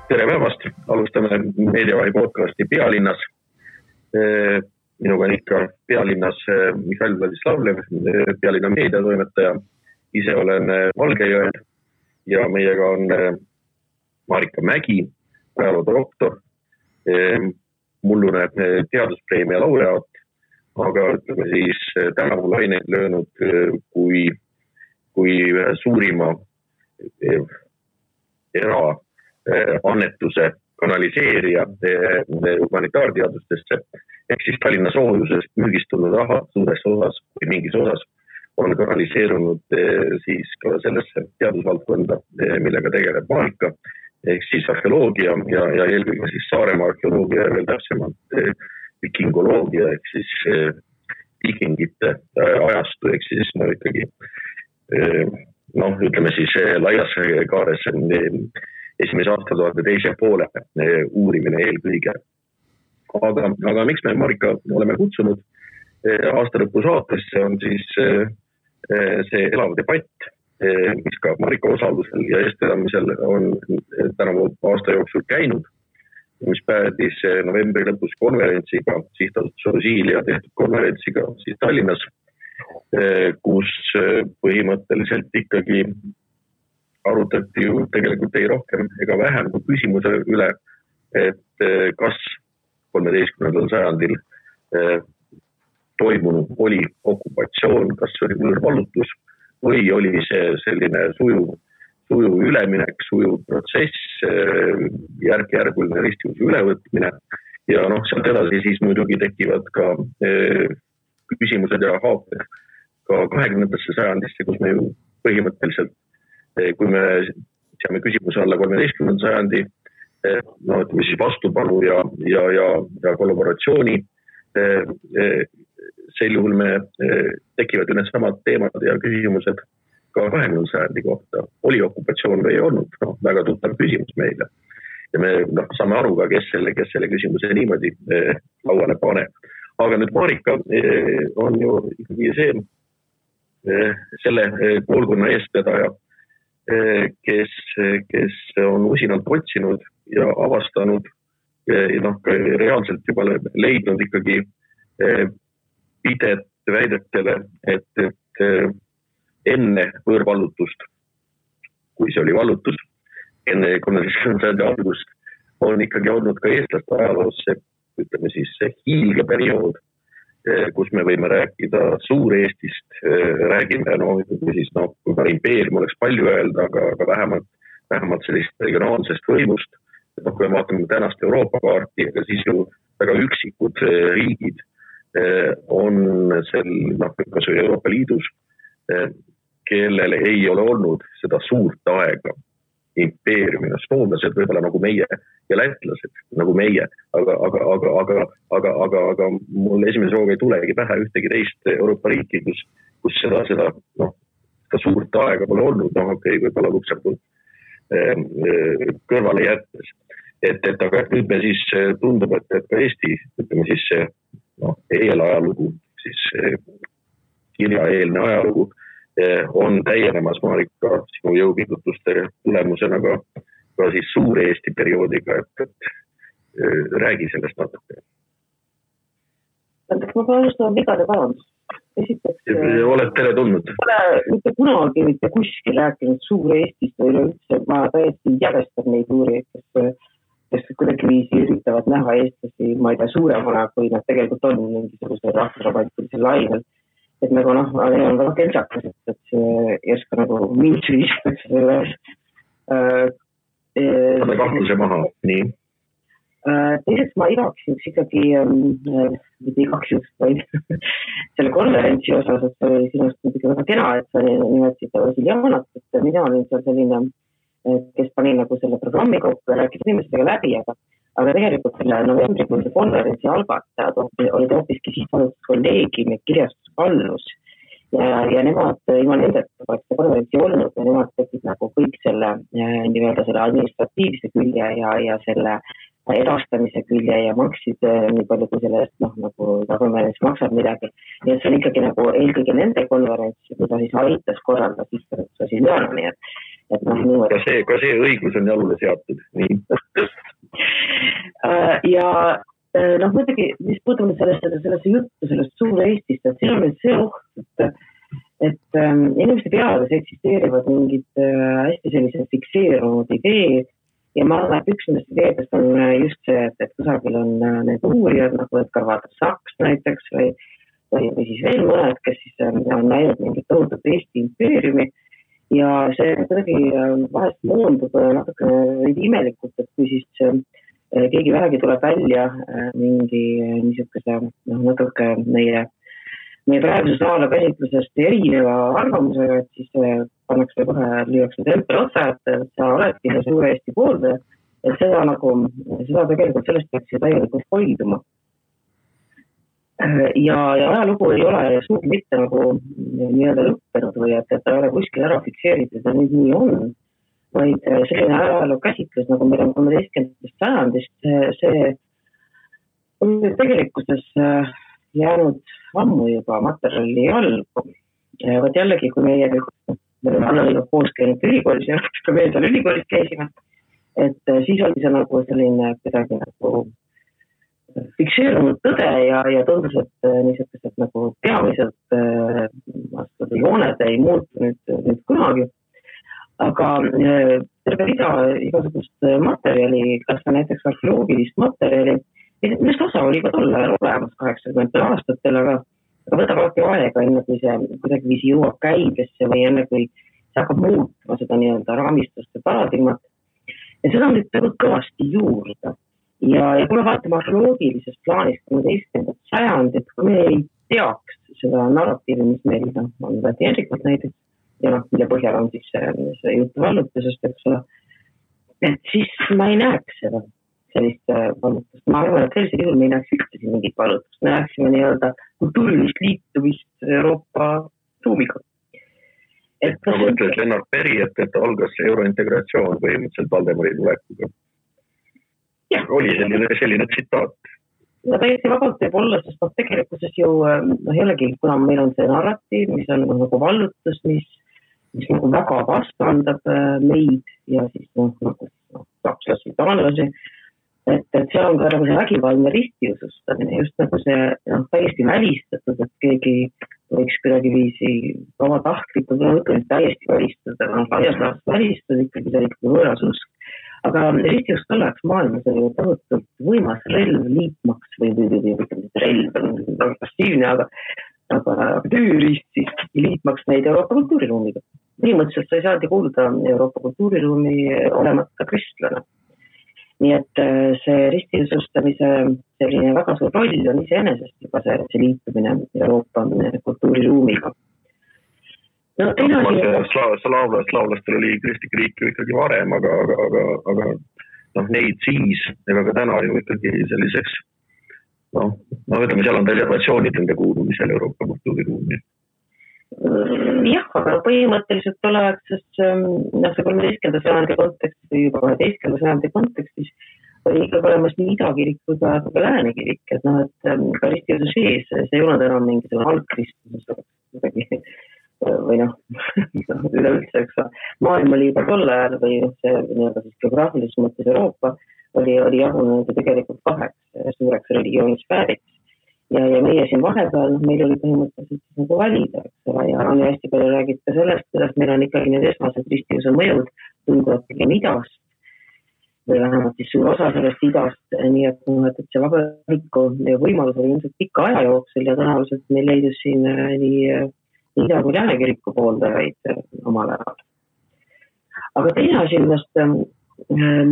Tere päevast, alustame Meediavahi podcasti Pealinnas. Minuga on ikka Pealinnas Mihhail Vladislavlev, Pealinna meediatoimetaja. Ise olen Valgejõel ja meiega on Marika Mägi, ajaloodoktor, mullune teaduspreemia laureaat, aga ütleme siis tänavu laineid löönud kui suurima annetuse kanaliseerija humanitaarteadustesse, ehk siis Tallinna soojusest müügistunud raha suures osas või mingis osas on kanaliseerunud siis ka sellesse teadusvaldkonda, millega tegeleb Marika, ehk siis arheoloogia ja eelkõige siis Saaremaa arheoloogia ja veel täpsemalt vikingoloogia, ehk siis vikingite ajastu, ehk siis ikkagi ütleme siis laias kaares esimese aastatuhande teise poole uurimine eelkõige. Aga miks me Marika oleme kutsunud aastalõpu saatesse on siis see elav debatt, mis ka Marika osalusel ja eestvedamisel on tänavu aasta jooksul käinud, mis päädis novembri lõpus konverentsiga, sihtasutus Osiilia tehtud konverentsiga siis Tallinnas, kus põhimõtteliselt ikkagi arutati ju tegelikult ei rohkem ega vähem kui küsimuse üle, et kas 13. sajandil toimunud oli okupatsioon, kas oli võõrvallutus või oli see selline sujuv üleminek, sujuv protsess, järk-järguline ristivuse ülevõtmine ja sealt edasi siis muidugi tekivad ka küsimused ja haaped ka 20. sajandisse, kus me ju põhimõtteliselt kui me seame küsimuse alla 13. sajandi, ütleme siis vastupanu ja kollaboratsiooni, sel juhul me tekivad ju need samad teemad ja küsimused ka 20. sajandi kohta. Oli okupatsioon või ei olnud? Väga tuttav küsimus meile. Ja me saame aru ka, kes selle küsimuse niimoodi lauale pane. Aga nüüd Marika on ju ikkagi selle koolkonna eestvedaja, kes on usinalt otsinud ja avastanud reaalselt juba leidnud ikkagi pidet väidetele, et enne võõrvallutust, kui see oli vallutus, enne 13. sajandi algust, on ikkagi olnud ka eestlaste ajaloos see, ütleme siis see hiilgeperiood, kus me võime rääkida Suur-Eestist, räägime, siis kui ka impeerium oleks palju öelda, aga vähemalt sellist regionaalsest võimust, kui me vaatame tänast Euroopa kaarti, aga siis ju väga üksikud riigid on kas või Euroopa Liidus, kellel ei ole olnud seda suurt aega impeeriumina, soomlased võib-olla nagu meie ja lätlased nagu meie, aga mul esimese hooga ei tulegi pähe ühtegi teist Euroopa riiki, kus seda suurt aega pole olnud, võib-olla Luksemburg kõrvale jättes. Aga nüüd me siis tundub, et ka Eesti, ütleme siis eelajalugu, siis kirjaeelne ajalugu on täienemas Marika sinu jõupingutuste tulemusena ka siis Suur-Eesti perioodiga, et räägi sellest natuke. Ma pean alustama vigade parandust. Esiteks, oled tere tulnud? Pole mitte kunagi mitte kuskil rääkinud Suur-Eestist või üleüldse, ma täiesti järjestan neid uurijaid, kes kuidagi viisi üritavad näha eestlasi, ma ei tea, suuremana, kui nad tegelikult on mingisuguse rahvusromantilise lainel. Et nagu on väga kentsakas, et see ei oska nagu mind süüstakse selle kahtluse maha, nii. Teiseks ma igaks juks ikkagi, mitte igaks juks, vaid selle konverentsi osas, et see oli sinust muidugi väga kena, et sa nimetasid Vasiljanat, et mina olin seal selline, kes pani nagu selle programmi kokku ja rääkis inimestega läbi, aga tegelikult selle novembrikuuse konverentsi algatajad olid hoopiski sihtasutus kolleegim ja kirjastusvallus ja nemad ilma nendeta poleks seda konverentsi olnud ja nemad tegid nagu kõik selle nii-öelda selle administratiivse külje ja selle edastamise külje ja maksid nii palju kui sellest nagu konverents maksab midagi. Nii see on ikkagi nagu eelkõige nende konverents, kui ta siis aitas korraldada sihtasutus Vasiljanani. et niimoodi. Ka see õigus on jalule seatud. Nii. Ja muidugi, mis puudutab sellesse juttu, sellest suure Eestist, et siin on nüüd see oht, et inimeste peades eksisteerivad mingid hästi sellised fikseerunud ideed ja ma arvan, et üks nendest ideedest on just see, et kusagil on need uurijad, nagu Edgar Vaatra-Saks näiteks või siis veel mõned, kes siis on näinud mingit tohutut Eesti impeeriumi ja see kuidagi vahest moondub natukene imelikult, et kui siis keegi vähegi tuleb välja mingi niisuguse natuke meie praeguse saala käsitlusest erineva arvamusega, et siis pannakse kohe lüüakse tempel otsa, et sa oledki see suure Eesti pooldaja, et seda tegelikult sellest peaks ju täielikult hoiduma. Ja ajalugu ei ole suugi mitte nagu nii-öelda lõppenud või et ta ei ole kuskil ära fikseeritud ja nüüd nii on, vaid selline ajaloo käsitlus, nagu meil on 13. sajandist, see on tegelikkuses jäänud ammu juba materjali algu. Vaat jällegi, kui me oleme koos käinud ülikoolis ja kui me seal ülikoolis käisime, et siis oli see nagu selline kuidagi nagu fikseerunud tõde ja tundus, et niisugused nagu peamiselt jooned ei muutu nüüd kunagi. Aga terve rida igasugust materjali, kas näiteks arheoloogilist materjali, millest osa oli ka tol ajal olemas 80 aastatel, aga võtab alati aega, enne kui see kuidagi viisi jõuab käibesse või enne kui see hakkab muutma seda nii-öelda raamistust ja paradigmat. Ja seda on nüüd kõvasti juurde. Ja kui me vaatame arheoloogilisest plaanist 13. sajandit, kui me ei teaks seda narratiivi, mis meil on teadlikult näiteks, ja mille põhjal on siis see jutt vallutusest, eks ole, et siis ma ei näeks seda. Sellist vallutust. Ma arvan, et sellisel juhul me ei näeks ühtesi mingit vallutust. Me näeksime nii-öelda kultuurilist liitumist Euroopa ruumiga. Nagu ütles Lennart Peri, et algas eurointegratsioon põhimõtteliselt Valdemari tulekuga. Oli selline tsitaat. Ja täiesti vabalt võib olla, sest tegelikkuses ju jällegi, kuna meil on see narratiiv, mis on nagu vallutus, mis nagu väga vastandab meid ja siis sakslasi, taanlasi, et seal on ka nagu see vägivaldne ristiusustamine, just nagu see täiesti välistatud, et keegi võiks kuidagi viisi vabatahtlikult, täiesti välistada, laias laastus välistada, ikkagi see ikkagi võõras usk. Aga ristiust tolleaks maailmas oli tohutult võimas relv liitmaks või relv on väga passiivne, aga tööriist siis liitmaks neid Euroopa kultuuriruumiga. Põhimõtteliselt sa ei saadi kuuluda Euroopa kultuuriruumi olemata kristlane. Nii et see ristiusustamise selline väga suur roll on iseenesest juba see liitumine Euroopa kultuuriruumiga. Slaavlastel oli kristlik riik ju ikkagi varem, aga neid siis, ega ka täna ju ikkagi selliseks, ütleme, seal on reservatsioonid nende kuulumisel Euroopa kultuuriruumi. Jah, aga põhimõtteliselt oleks see 13. sajandi kontekstis või juba 12. sajandi kontekstis oli ikkagi olemas nii idakirik kui ka läänekirik, et ka ristiuse sees, see ei olnud enam mingisugune algkristlus või üleüldse, eks maailm oli juba tol ajal või see nii-öelda siis geograafilises mõttes Euroopa oli jagunenud tegelikult kaheks suureks religioonisfääriks. Ja meie siin vahepeal, meil oli põhimõtteliselt nagu valida, eks ole, ja on hästi palju räägid ka sellest, kuidas meil on ikkagi need esmased ristiuse mõjud tunduvad pigem idast või vähemalt siis suur osa sellest idast, nii et see vabariku võimalus oli ilmselt pikka aja jooksul ja tõenäoliselt meil leidus siin nii ida- kui läänekiriku pooldajaid omal ajal. Aga teine asi, ma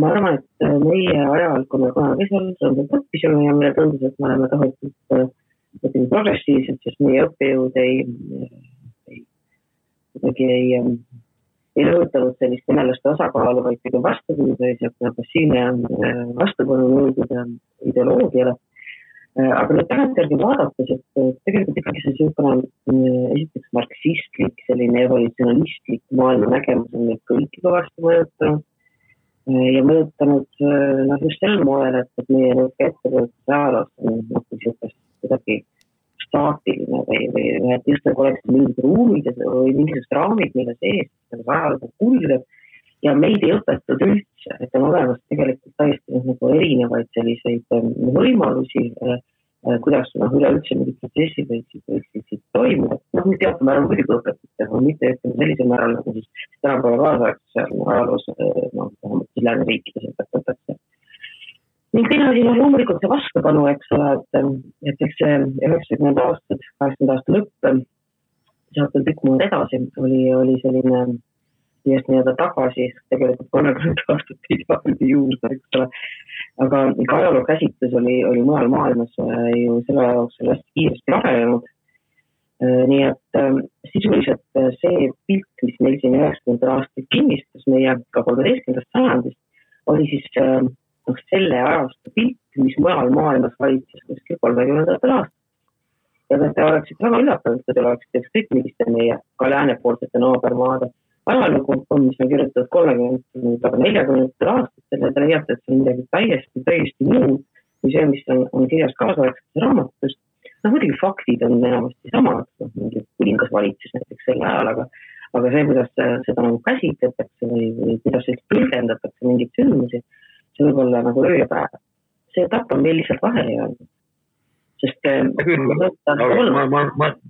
arvan, et meie ajal, kui me kunagi seal õppisime ja meile tundus, et me oleme tohutult progressiivsed, sest meie õppejõud ei rõhutanud sellist venelaste osakaalu, vaid pigem vastupidi, või passiivne vastupanu nõudude ideoloogiale. Aga nüüd tagantjärgi vaadates, et tegelikult ikkagi see esiteks marksistlik, selline evolutsionalistlik maailma nägemus on neid kõiki kõvasti mõjutanud. Ja mõjutanud just sel moel, et meie ettevõttes ajaloos on kuidagi staatiline või et just nagu oleks mingid ruumid või mingisugused raamid, mille sees ajaloos kulgeb ja meid ei õpetatud üldse, et on olemas tegelikult täiesti nagu erinevaid selliseid võimalusi, kuidas üleüldse mingid protsessid võiksid toimuda. Nüüd teatud määral muidugi õpetatud, aga mitte sellisel määral nagu siis tänapäeva kaasaegses ajaloos vähemalt lääneriikides õpetatakse. Ning teine asi, loomulikult see vastupanu, eks ole, et eks see 90 aastad, 80 aasta lõpp, sealt tükk mood edasi, oli selline just nii-öelda tagasi, tegelikult 30 aastat hiljem juurde, eks ole. Aga ajaloo käsitlus oli mujal maailmas ju selle jaoks hästi kiiresti arenenud. Nii et sisuliselt see pilt, mis meil siin 90 aastat kinnistas meie ka 13. sajandist, oli siis selle ajastu pilt, mis mujal maailmas valitses kuskil 30. aastat. Ja te oleksid väga üllatanud, et te oleksid ükskõik milliste meie ka läänepoolsete naabermaade ajalugu, mis on kirjutatud 30-40 aastat, te leiate, et see on midagi täiesti muud kui see, mis on kirjas kaasaegses raamatus. Muidugi faktid on enamasti samad, mingi kuningas valitses näiteks selle ajal, aga see, kuidas seda nagu käsitletakse või kuidas see tõlgendatakse mingit sündmusi, see võib olla nagu öö ja päev. See etapp on meil lihtsalt vahele jäänud. Sest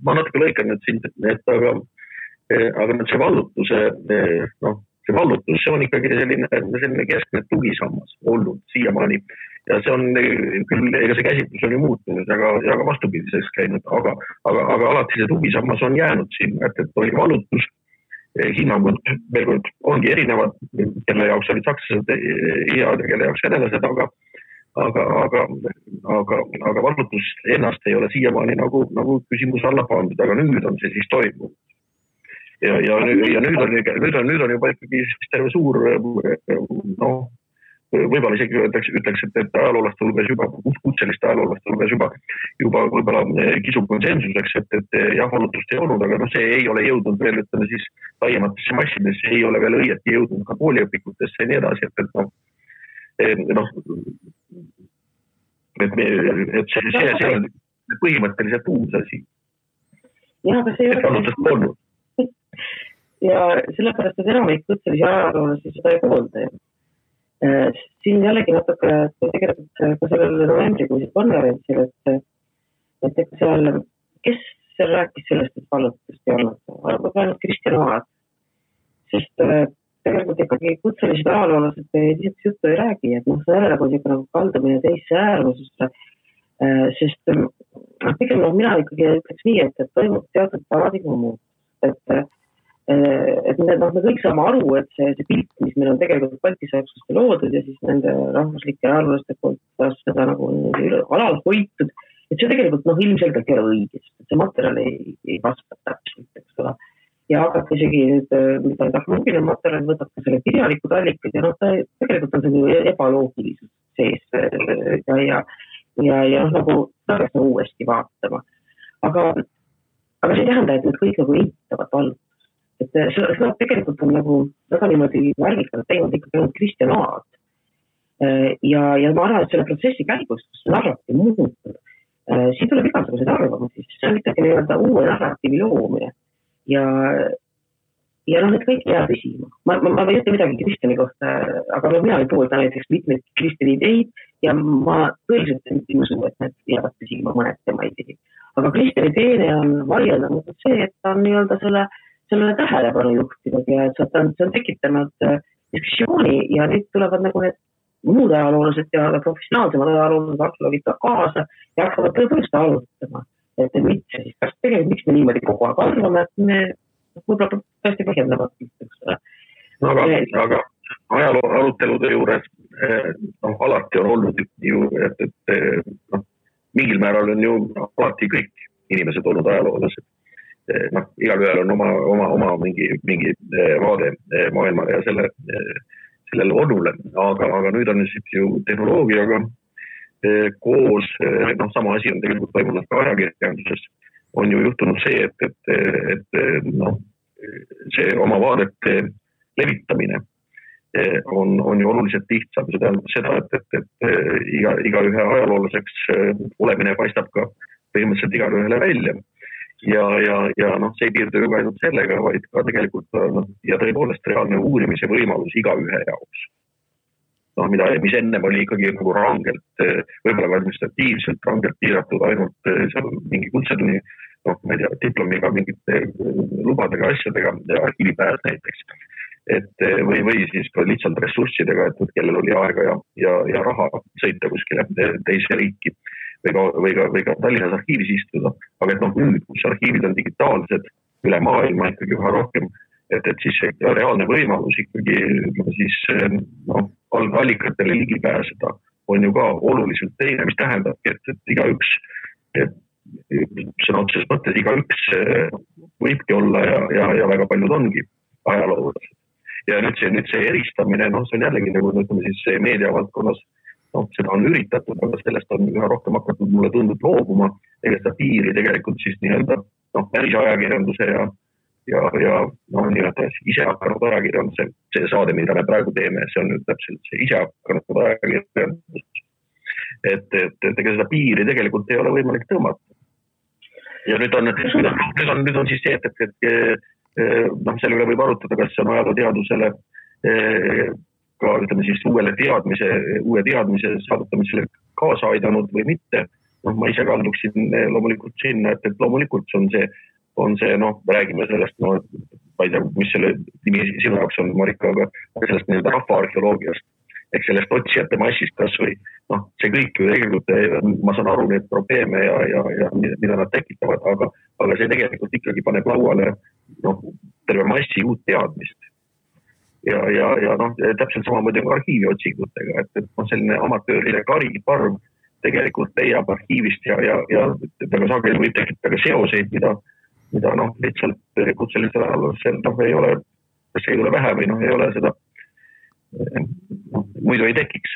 ma natuke lõikan nüüd sind, aga nüüd see vallutuse, see vallutus, see on ikkagi selline keskne tugisammas olnud siiamaani. Ja see on küll, ega see käsitlus on ju muutunud, aga vastupidiseks käinud, aga alati see tugisammas on jäänud siin, et oli vallutus, hinnangud veel kord ongi erinevad, kelle jaoks olid sakslased head ja kelle jaoks venelased, aga vallutus ennast ei ole siiamaani nagu küsimus alla pandud, aga nüüd on see siis toimunud. Ja nüüd on juba ikkagi terve suur, võib-olla isegi ütleks, et ajaloolaste hulgas juba, kutseliste ajaloolaste hulgas juba võib-olla kisub konsensuseks, et jah, valutust ei olnud, aga see ei ole jõudnud veel, ütleme siis laiematesse massidesse, ei ole veel õieti jõudnud ka kooliõpikutesse ja nii edasi, et see on põhimõtteliselt uus asi. Ja, aga see ei ole ja sellepärast, et enamik kutselisi ajaloolasi seda ei poolda. Siin jällegi natuke tegelikult ka sellel novembrikuisel konverentsil, et seal, kes seal rääkis sellest, et vallutust ei olnud, arvab ainult Kristjan Aad, sest tegelikult ikkagi kutselised ajaloolased lihtsalt juttu ei räägi, et selle nagu kaldumine teisse äärmususse, sest pigem mina ikkagi ütleks nii, et toimub teatud paradigma muud, et me kõik saame aru, et see pilt, mis meil on tegelikult baltisakslaste loodud ja siis nende rahvuslike ajaloolaste poolt seda nagu alal hoitud, et see tegelikult ilmselgelt ei ole õigest, et see materjal ei vasta täpselt, eks ole. Ja hakata isegi nüüd, mida tehnoloogiline materjal võtab ka selle kirjalikud allikad ja tegelikult on see ebaloogilisus sees ja nagu tagasi uuesti vaatama. Aga see ei tähenda, et need kõik nagu eitavad valdust. Et seda tegelikult on nagu väga niimoodi värvikalt teinud ikkagi ainult Kristjan Aad. Ja ma arvan, et selle protsessi käigus, kus narratiiv muutub, siin tuleb igasugused arvamusi, see on ikkagi nii-öelda uue narratiivi loomine. Ja need kõik jääb püsima. Ma ei ütle midagi Kristjani kohta, aga mina ei poolda näiteks mitmeid Kristjani ideid ja ma tõeliselt ei usu, et need jäävad püsima mõned tema ideid. Aga Kristjani teene on vaieldatud see, et ta on nii-öelda selle tähelepanu juhtinud ja et see on tekitanud diskussiooni ja nüüd tulevad nagu need muud ajaloolased ja professionaalsemad ajaloolased arheoloogid ka kaasa ja hakkavad tõepoolest arutama, et mitte siis, kas tegelikult miks me niimoodi kogu aeg arvame, et me võib-olla tõesti põhjendavad. Aga ajaloo arutelude juures alati on olnud ju, et mingil määral on ju alati kõik inimesed olnud ajaloolased. Igal on oma mingi vaade maailmale ja sellele olule, aga nüüd on ju tehnoloogiaga koos, sama asi on tegelikult toimunud ka ajakirjanduses, on ju juhtunud see, et see oma vaadete levitamine on ju oluliselt lihtsam. See tähendab seda, et iga ühe ajaloolaseks olemine paistab ka põhimõtteliselt igal ühele välja. ja noh, see ei piirdu ju ka ainult sellega, vaid ka tegelikult ja tõepoolest reaalne uurimise võimalus igaühe jaoks. Noh, mis ennem oli ikkagi nagu rangelt, võib-olla administratiivselt rangelt piiratud ainult seal mingi kutsetunni, noh, ma ei tea, diplomiga, mingite lubadega, asjadega, arhiivipääs näiteks. Või siis ka lihtsalt ressurssidega, et kellel oli aega ja raha sõita kuskile teise riiki või ka Tallinnas arhiivis istuda. Aga et noh, nüüd, kus arhiivid on digitaalsed üle maailma ikkagi üha rohkem, et siis reaalne võimalus ikkagi siis allikatele ligi pääseda on ju ka oluliselt teine, mis tähendab, et igaüks, sõna otseses mõttes igaüks võibki olla ja väga paljud ongi ajaloolased. Ja nüüd see eristamine, see on jällegi nagu ütleme siis meediavaldkonnas, seda on üritatud, aga sellest on üha rohkem hakatud mulle tundub loobuma, ega seda piiri tegelikult siis nii-öelda päris ajakirjanduse ja nii-öelda ise hakanud ajakirjanduse, see saade, mida me praegu teeme, see on nüüd täpselt see ise hakanud ajakirjandus. Et ega seda piiri tegelikult ei ole võimalik tõmmata. Ja nüüd on siis see, et selle üle võib arutada, kas see on ajalooteadusele ka ütleme siis uue teadmise saavutamisele kaasa aidanud või mitte. Ma ise kalduksin loomulikult sinna, et loomulikult on see, räägime sellest, ma ei tea, mis selle nimi sinu jaoks on, Marika, aga sellest nii-öelda rahvaarheoloogiast, ehk sellest otsijate massist kas või, see kõik ju tegelikult, ma saan aru neid probleeme ja mida nad tekitavad, aga see tegelikult ikkagi paneb lauale terve massi uut teadmist. Ja täpselt samamoodi on arhiiviotsingutega, et selline amatöörile kariparv tegelikult leiab arhiivist ja väga sageli võib tekitada seoseid, mida lihtsalt kutselisel ajalusel ei ole, kas ei ole vähe või ei ole seda, muidu ei tekiks.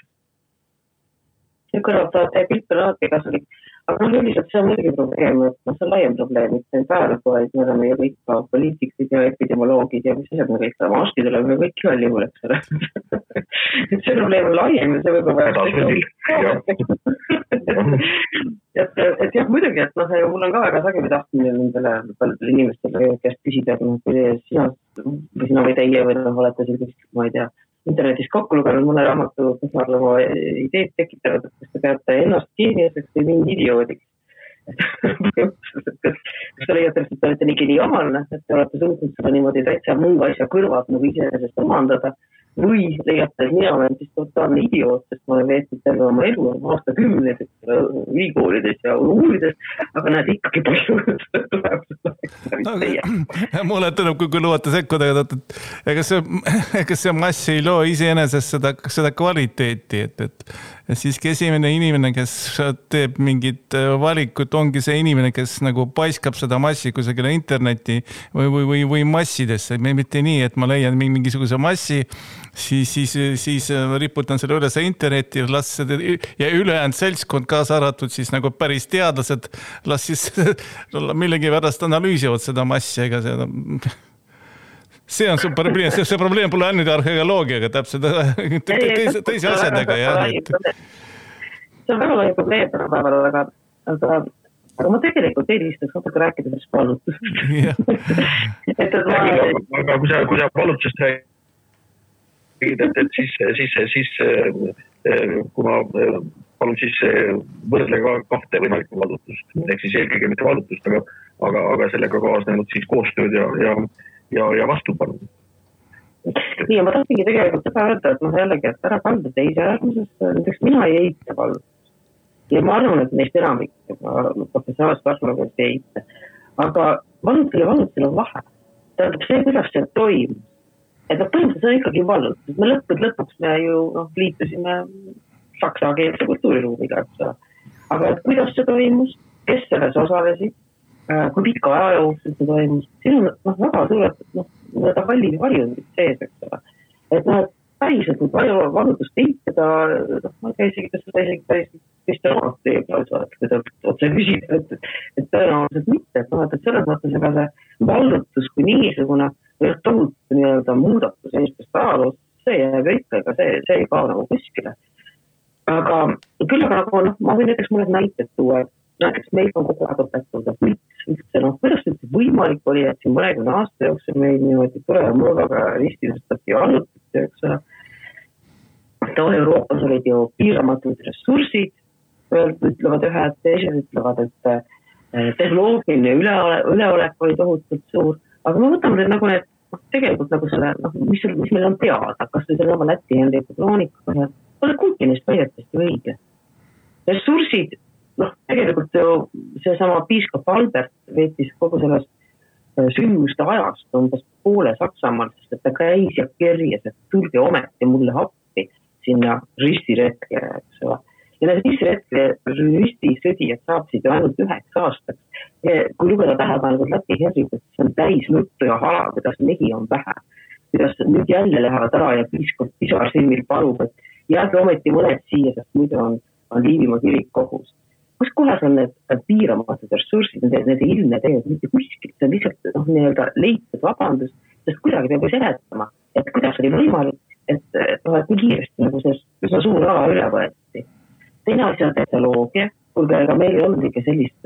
Ja kõrvaldavat ja pilt on alati kasulik. Aga üldiselt see on muidugi probleem, et see on laiem probleem, mitte praegu, vaid me oleme ju kõik ka poliitikid ja epidemioloogid ja mis asjad me kõik oleme, arstid oleme kõik igal juhul, eks ole. Et see probleem on laiem ja see võib et jah, muidugi, et mul on ka väga sageli tahtmine nendele inimestele, kes küsida, kui sina või teie või olete sellist, ma ei tea, internetis kokku lugenud mõne raamatu, kes oma ideed tekitavad, et kas te peate ennast geeniaseks või mingi idioodiks. Kas te leiate, et te olete nii geniaalne, et te olete suutnud seda niimoodi täitsa muu asja kõrvad nagu iseenesest omandada või leiate, et mina olen siis totaalne idioot, sest ma olen veetnud terve oma elu aastakümneid ülikoolides ja uurides, aga näed ikkagi palju mulle tõnub, kui lubate sekkuda, ega see mass ei loo iseenesest seda kvaliteeti, et siiski esimene inimene, kes teeb mingit valikut, ongi see inimene, kes nagu paiskab seda massi kusagile interneti või massidesse. Mitte nii, et ma leian mingisuguse massi, siis riputan selle üles internetti ja ülejäänud seltskond kaasa arvatud siis nagu päris teadlased las siis millegi pärast analüüsivad seda massi, ega see on see probleem pole ainult arheoloogiaga, täpselt teisi asjadega. See on väga lai probleem, aga ma tegelikult eelistaks natuke rääkida sellest vallutusest. Aga kui sa vallutusest räägid, siis kui ma palun siis võrdlega kahte võimalikku vallutust, ehk siis eelkõige mitte vallutust, aga sellega kaasnenud siis koostööd ja vastupanu. Nii, ja ma tahtsingi tegelikult seda öelda, et jällegi, et ära kalda teise äärmuses, näiteks mina ei eita vallutust. Ja ma arvan, et neist enamik professionaalset arheoloogiast ei eita. Aga vallutusel on vahe. Tähendab see, kuidas see toimub. Et põhimõtteliselt on ikkagi vallutus. Me lõpuks me ju liitusime saksakeelse kultuuriruumiga. Aga et kuidas see toimus, kes selles osalesid, kui pikka aja jooksul see toimus, siin on väga suured hallid varjundid sees, eks ole. Et päriselt kui palju vallutust eitada, ma ei tea isegi, kas seda isegi päris teeb, kui ta otse küsib, et tõenäoliselt mitte, et selles mõttes ega see vallutus kui niisugune tohutu nii-öelda muudatus inimestest ajaloos, see jääb ikka, ega see ei kao nagu kuskile. Aga küll aga ma võin näiteks mõned näited tuua, näiteks meil on kogu aeg õpetada, kuidas võimalik oli, et siin mõnekümne aasta jooksul meil niimoodi tuleva mõõgaga ristilustati allutati, eks ole. Euroopas olid ju piiramatud ressursid, ütlevad ühed, teised ütlevad, et tehnoloogiline üleolek oli tohutult suur, aga me võtame nagu need, tegelikult nagu selle, mis meil on teada, kas või selle Läti Henriku kroonika, pole kuigi neist väidetest ju õige. Ressursid, tegelikult ju seesama piiskop Albert veetis kogu sellest sündmuste ajast umbes poole Saksamaal, sest et ta käis ja kerjas, et tulge ometi mulle appi sinna ristiretke, eks ole. Ja need ristisõdijad saabsid ju ainult 9 aastaks. Kui lugeda tähepäevalt Läti Henrikut, see on täis nuttu ja hala, kuidas mehi on vähe. Kuidas nüüd jälle lähevad ära ja piiskop pisarsilmil palub, et jääge ometi mõned siia, sest muidu on Liivimaa kirik kohus. Kus kohas on need piiramatud ressursid, need ilmne teed, mitte kuskilt, see on lihtsalt nii-öelda leitud vabandus, sest kuidagi peab ju seletama, et kuidas oli võimalik, et nii kiiresti nagu see suur ala üle võeti. Teine asi on tehnoloogia, kuulge, aga meil ei olnud ikka sellist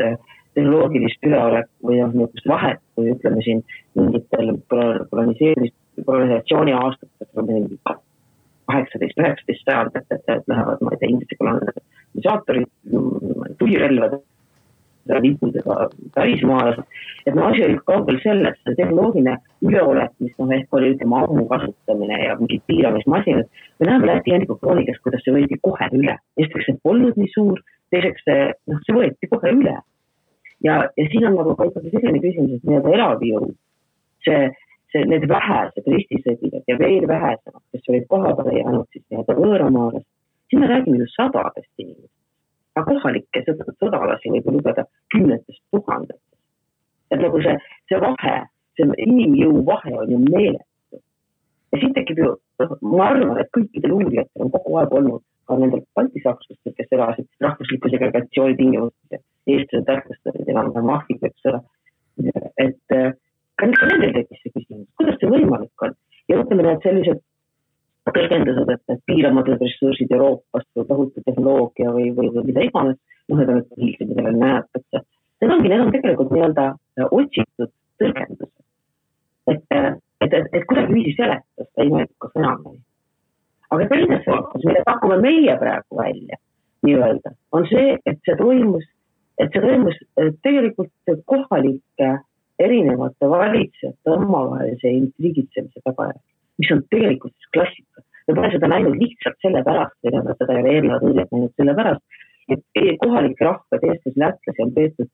tehnoloogilist üleolek või niisugust vahet, kui ütleme siin mingitel kolonisatsiooni aastatel 18-19 sajandit, et lähevad, ma ei tea, inglise kolonisaatorid, tulirelvad, liikudega pärismaalased, et asi oli kaugel sellest, see tehnoloogiline üleolek, mis ehk oli ütlema ammu kasutamine ja mingid piiramismasinad, me näeme Läti Henriku kroonikast, kuidas see võeti kohe üle. Esiteks see polnud nii suur, teiseks see võeti kohe üle. Ja siin on nagu ka ikkagi selline küsimus, et nii-öelda elavjõud, need vähesed ristisõdijad ja veel vähesemad, kes olid kohapeale jäänud siis nii-öelda võõramaalast, siin me räägime ju sadadest inimest. Aga kohalikke sõdalasi võib lugeda 10 000. Et nagu see vahe, see inimjõu vahe on ju meeletu. Ja siin tekib ju, ma arvan, et kõikidel uurijatel on kogu aeg olnud ka nendel baltisakslastel, kes elasid rahvusliku segregatsiooni tingimustes ja eestlased tähtlustasid enam mahviga, eks ole. Et ka nendel tekkis see küsimus, kuidas see võimalik on? Ja ütleme need sellised tõlgendused, et piiramatud ressursid Euroopast või tohutu tehnoloogia või mida iganes, need on hiljem, mida veel näetakse. Need on tegelikult nii-öelda otsitud tõlgendused. Et kuidagi viisi seletust ei mõeldukas enam. Aga teine seletus, mida pakume meie praegu välja, nii-öelda, on see, et see toimus tegelikult kohalike erinevate valitsejate omavahelise intriigitsemise tagajärg, mis on tegelikult klassika. Me pole seda näinud lihtsalt sellepärast, seda ei ole eelnevad õiget näinud sellepärast, et kohalike rahvad Eestis lätlasi on peetud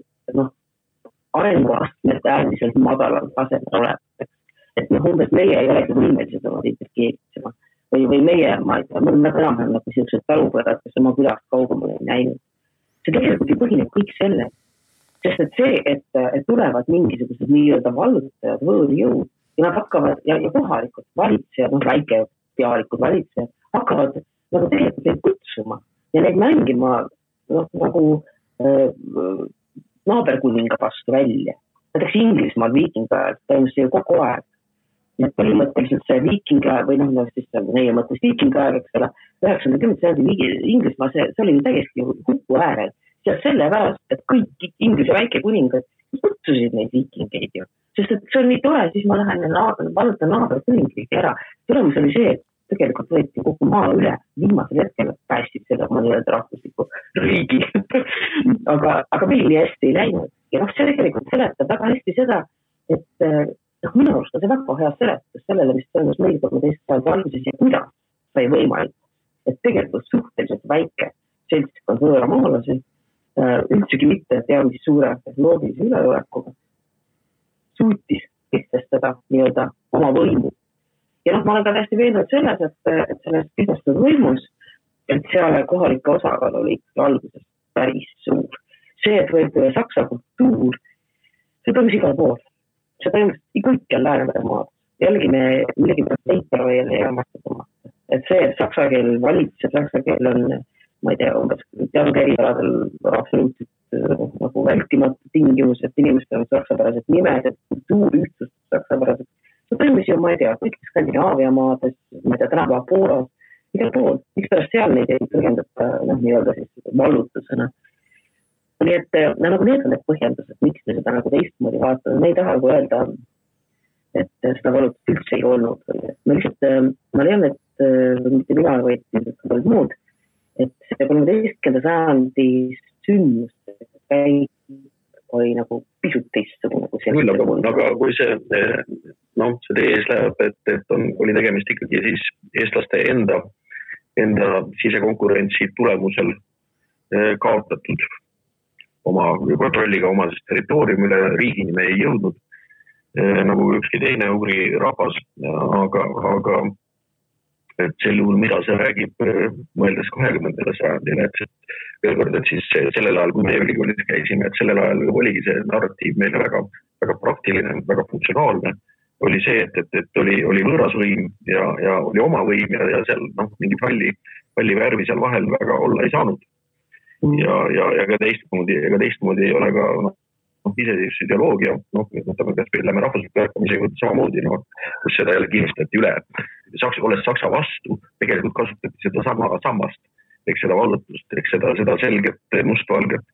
arenguastmed äärmiselt madalal tasemel olevateks. Et umbes meie ei olegi võimelised oma interkeeritsema. Või meie, ma ei tea, me enam-vähem nagu sellised talupõdad, kes oma külast kaugemale ei näinud. See tegelikult ei põhineb kõik selle. Sest et see, et tulevad mingisugused nii-öelda vallutajad, võõrjõud, ja nad hakkavad, ja kohalikud valitsejad, väikepealikud valitsejad, hakkavad nagu tegelikult neid kutsuma ja neid mängima nagu naaberkuninga vastu välja. Näiteks Inglismaal viikingaajal toimus see kogu aeg. Need põhimõtteliselt see viikingaajal, või meie mõttes viikingaajal, eks ole, 90. Inglismaal, see oli täiesti hupu äärel. Ja sellepärast, et kõik Inglise väikekuningad kutsusid neid viikingeid ju. Sest et see on nii tore, siis ma lähen valutan naaberkuningriigi ära. Tulemus oli see, et tegelikult võeti kogu maa üle, viimasel hetkel päästid seda oma nii-öelda rahvusliku riigi. aga meil nii hästi ei läinud. Ja see tegelikult seletab väga hästi seda, et minu arust on see väga hea seletus sellele, mis toimus meil 13. sajandi alguses ja kuidas sai võimalik, et tegelikult suhteliselt väike seltskond võõramaalasi üldsegi mitte teadmisi suure tehnoloogilise üleolekuga suutis kehtestada nii-öelda oma võimu. Ja ma olen ka täiesti veendunud selles, et sellest kehtestatud võimus, et seal kohalike osakaal oli alguses päris suur. See, et võib saksa kultuur, see toimus igal pool. See toimus kõikjal Läänemere maad. Jällegi me millegi protsente veel ei amastada. Et see, et saksa keel valitseb, saksa keel on, ma ei tea, umbes teatud erialadel absoluutselt nagu vältimatu tingimus, et inimestel on saksapärased nimed, et kultuur ühtsus saksapärased. See toimus ju, ma ei tea, kõik Skandinaavia maades, ma ei tea, tänapäeva Poolas, igal pool. Miks pärast seal neid ei põhjendata nii-öelda siis vallutusena. Nii et nagu need on need põhjendused, miks üldse seda nagu teistmoodi vaatama, me ei taha nagu öelda, et seda valutust üldse ei olnud. Ma lihtsalt, ma leian, et mitte mina, vaid paljud muud, et see 13. sajandi sündmuste käik oli nagu pisut teistsugune. Aga kui see teie ees läheb, et oli tegemist ikkagi siis eestlaste enda sisekonkurentsi tulemusel kaotatud oma kontrolliga oma territooriumile, riigini me ei jõudnud, nagu ükski teine ugri rahvas, aga et sel juhul, mida see räägib, mõeldes 20. sajandile, et veel kord, et siis sellel ajal, kui me ülikoolis käisime, et sellel ajal oligi see narratiiv meile väga, väga praktiline, väga funktsionaalne, oli see, et oli võõrasvõim ja oli oma võim ja seal mingi palli värvi seal vahel väga olla ei saanud. Ja ka teistmoodi ei ole ka iseseisvus ideoloogia, võtame kas või lähme rahvusliku ärkamisega samamoodi, kus seda jälle kinnistati üle. Olles Saksa vastu, tegelikult kasutati seda sama sammast, seda vallutust, seda selget mustvalget.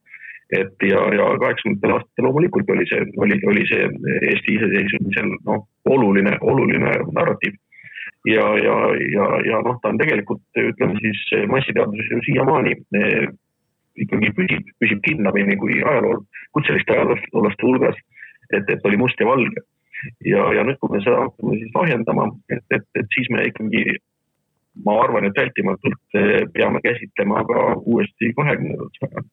Ja 80. aastatel loomulikult oli see Eesti iseseisvumisel oluline narratiiv. Ja ta on tegelikult, ütleme siis, massiteaduses ju siiamaani ikkagi püsib kinnamini kui kutseliste ajaloolaste hulgas, et oli must ja valge. Ja nüüd, kui me seda hakkame siis lahjendama, et siis me ikkagi, ma arvan, et vältimatult peame käsitlema ka uuesti 20. sajandit,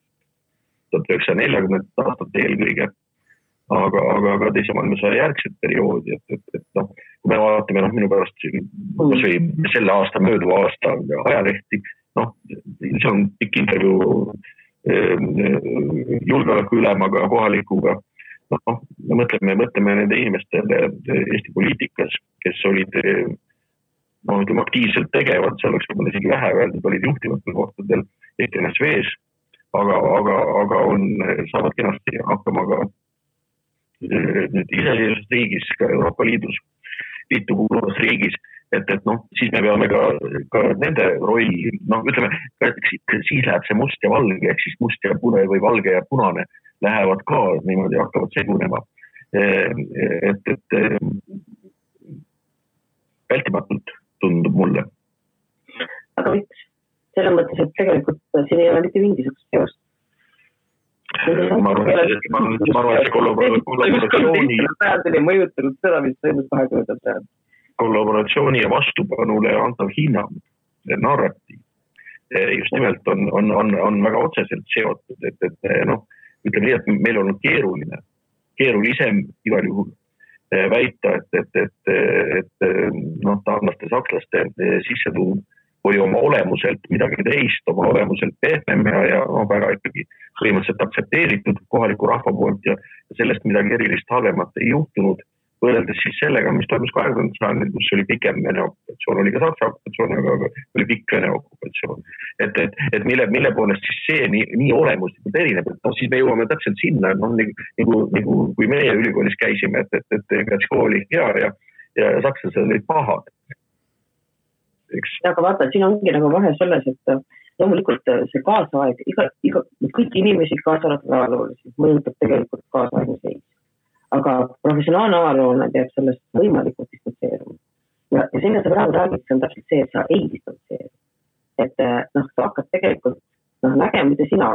1940. aastat eelkõige, aga teise maailmasõja järgset perioodi, et kui me vaatame minu pärast kas või selle aasta, mööduva aasta ajalehti, see on pikk intervjuu julgeoleku ülemaga, kohalikuga. Me mõtleme nende inimestele Eesti poliitikas, kes olid aktiivselt tegevad, see oleks võib-olla isegi vähe öeldud, olid juhtivatel kohtadel ENSV-s, aga saavad kenasti hakkama ka iseseisvas riigis, ka Euroopa Liitu kuuluvas riigis, et siis me peame ka nende rolli, ütleme, siis läheb see must ja valge, ehk siis must ja pune või valge ja punane lähevad ka niimoodi, hakkavad segunema. Et vältimatult tundub mulle. Aga miks? Selles mõttes, et tegelikult siin ei ole mitte mingisugust seost. Ma arvan, et kollaboratsiooni mõjutanud seda, mis toimus 20. sajandil. Kollaboratsiooni ja vastupanule antav hinnang, narratiiv, just nimelt on väga otseselt seotud, et ütleme nii, et meil on keerulisem igal juhul väita, et taanlaste, sakslaste sissetuum või oma olemuselt midagi teist, oma olemuselt pehmem ja väga ikkagi põhimõtteliselt aktsepteeritud kohaliku rahva poolt ja sellest midagi erilist halvemat ei juhtunud, võrreldes siis sellega, mis toimus 20. sajandil, kus oli pikem Vene okupatsioon, oli ka Saksa okupatsioon, aga oli pikk Vene okupatsioon. Et mille poolest siis see nii olemuslikult erineb, et siis me jõuame täpselt sinna, nagu kui meie ülikoolis käisime, et Gratško oli hea ja sakslased olid pahad. Aga vaata, siin ongi nagu vahe selles, et loomulikult see kaasaeg, kõik inimesi kaasalatud ajaloolisi mõjutab tegelikult kaasaegne seis. Aga professionaalne ajaloolane peab sellest võimalikult distantseeruma. Ja sinna sa praegu räägid, see on täpselt see, et sa ei distantseeru. Et sa hakkad tegelikult nägema, mida sina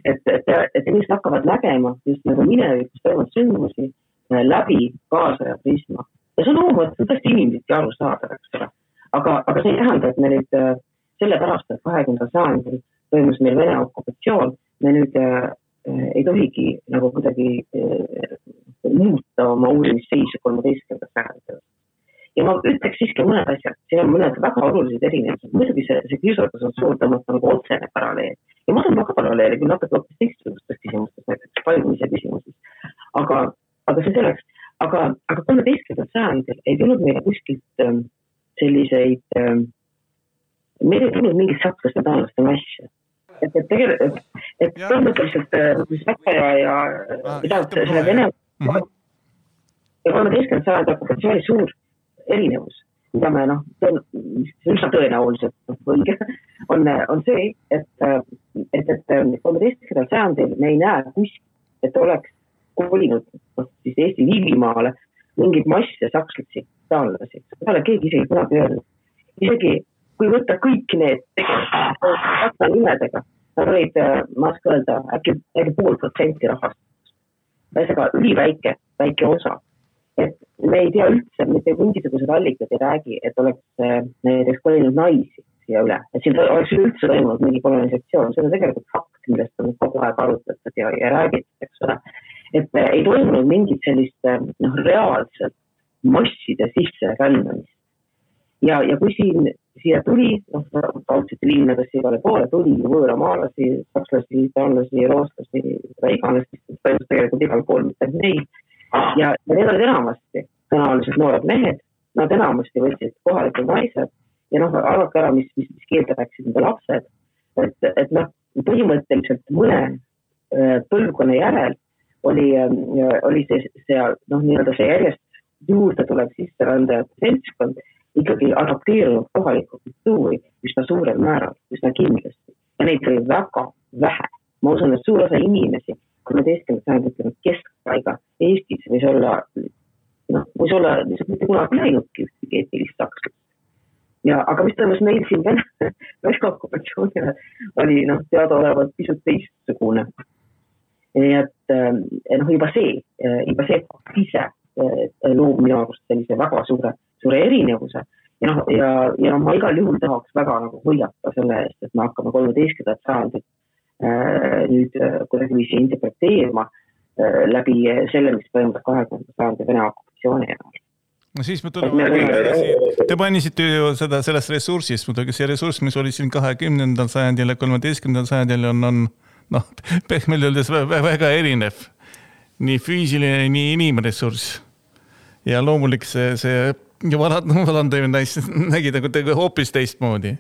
et inimesed hakkavad nägema just nagu minevikus toimunud sündmusi läbi kaasaja prisma. Ja see on loomulikult tõesti inimesed aru saada, aga see ei tähenda, et me nüüd sellepärast, et 20. sajandil toimus meil Vene okupatsioon, me nüüd ei tohigi nagu kuidagi muuta oma uurimisseisu 13. sajandil. Ja ma ütleks siiski mõned asjad, siin on mõned väga olulised erinevad. Muidugi see kiusatus on suur tõmmata nagu otsene paralleel. Ja ma olen väga paralleeli, kui natuke hoopis teistsugustes küsimustes, näiteks paljumise küsimuses. Aga see selleks. Aga 13. sajandil ei tulnud meile kuskilt selliseid, meil ei tulnud mingit sakslaste taanlaste massi. Et põhimõtteliselt Saksa ja selle Vene ja 13. sajandi okupatsiooni suur erinevus mida me üsna tõenäoliselt õige, on see, et 13. sajandil me ei näe kuskil, et oleks kolinud siis Eesti Liivimaale mingid masse sakslasi, taanlasi. Seda ole keegi isegi kunagi öelnud. Isegi kui võtta kõik need tegelikult nimedega, nad olid, ma oskan öelda, äkki 0,5% rahvast. Väisega üliväike osa. Et me ei tea üldse, mitte mingisugused allikad ei räägi, et oleks näiteks kolinud naisi siia üle. Et siin oleks üldse toimunud mingi kolonisatsioon. See on tegelikult fakt, millest on kogu aeg arutatud ja räägitud, eks ole. Et ei toimunud mingit sellist reaalselt masside sisse rändamist. Ja kui siia tuli, kaudsete liinadesse igale poole tuli võõramaalasi, sakslasi, taanlasi, rootslasi, iganes, tegelikult igal pool mitte neil. Ja need olid enamasti tõenäoliselt noored mehed, nad enamasti võtsid kohalikud naised ja arvake ära, mis keelde rääksid nende lapsed. Et põhimõtteliselt mõne põlvkonna järel oli see järjest juurde tulev sisserändajate seltskond ikkagi adapteerunud kohalikku kultuuri üsna suurel määral, üsna kindlasti. Ja neid oli väga vähe. Ma usun, et suur osa inimesi, 13. sajandil keskpaiga Eestis võis olla mitte kunagi läinudki ühtegi eetilist sakslast. Aga mis toimus meil siin Vene okupatsioonile oli teadaolevalt pisut teistsugune. Nii et juba see ise loob minu arust sellise väga suure erinevuse. Ja ma igal juhul tahaks väga hoiata selle eest, et me hakkame 13. sajandit nüüd kuidagi viisi interpreteerima läbi selle, mis toimub 20. sajandi Vene okupatsiooni ajal. No siis me tuleme, te mainisite ju sellest ressursist, muidugi see ressurss, mis oli siin 20. sajandil ja 13. sajandil on pehmelt öeldes väga erinev. Nii füüsiline, nii inimressurss. Ja loomulik see valandamine nägi hoopis teistmoodi.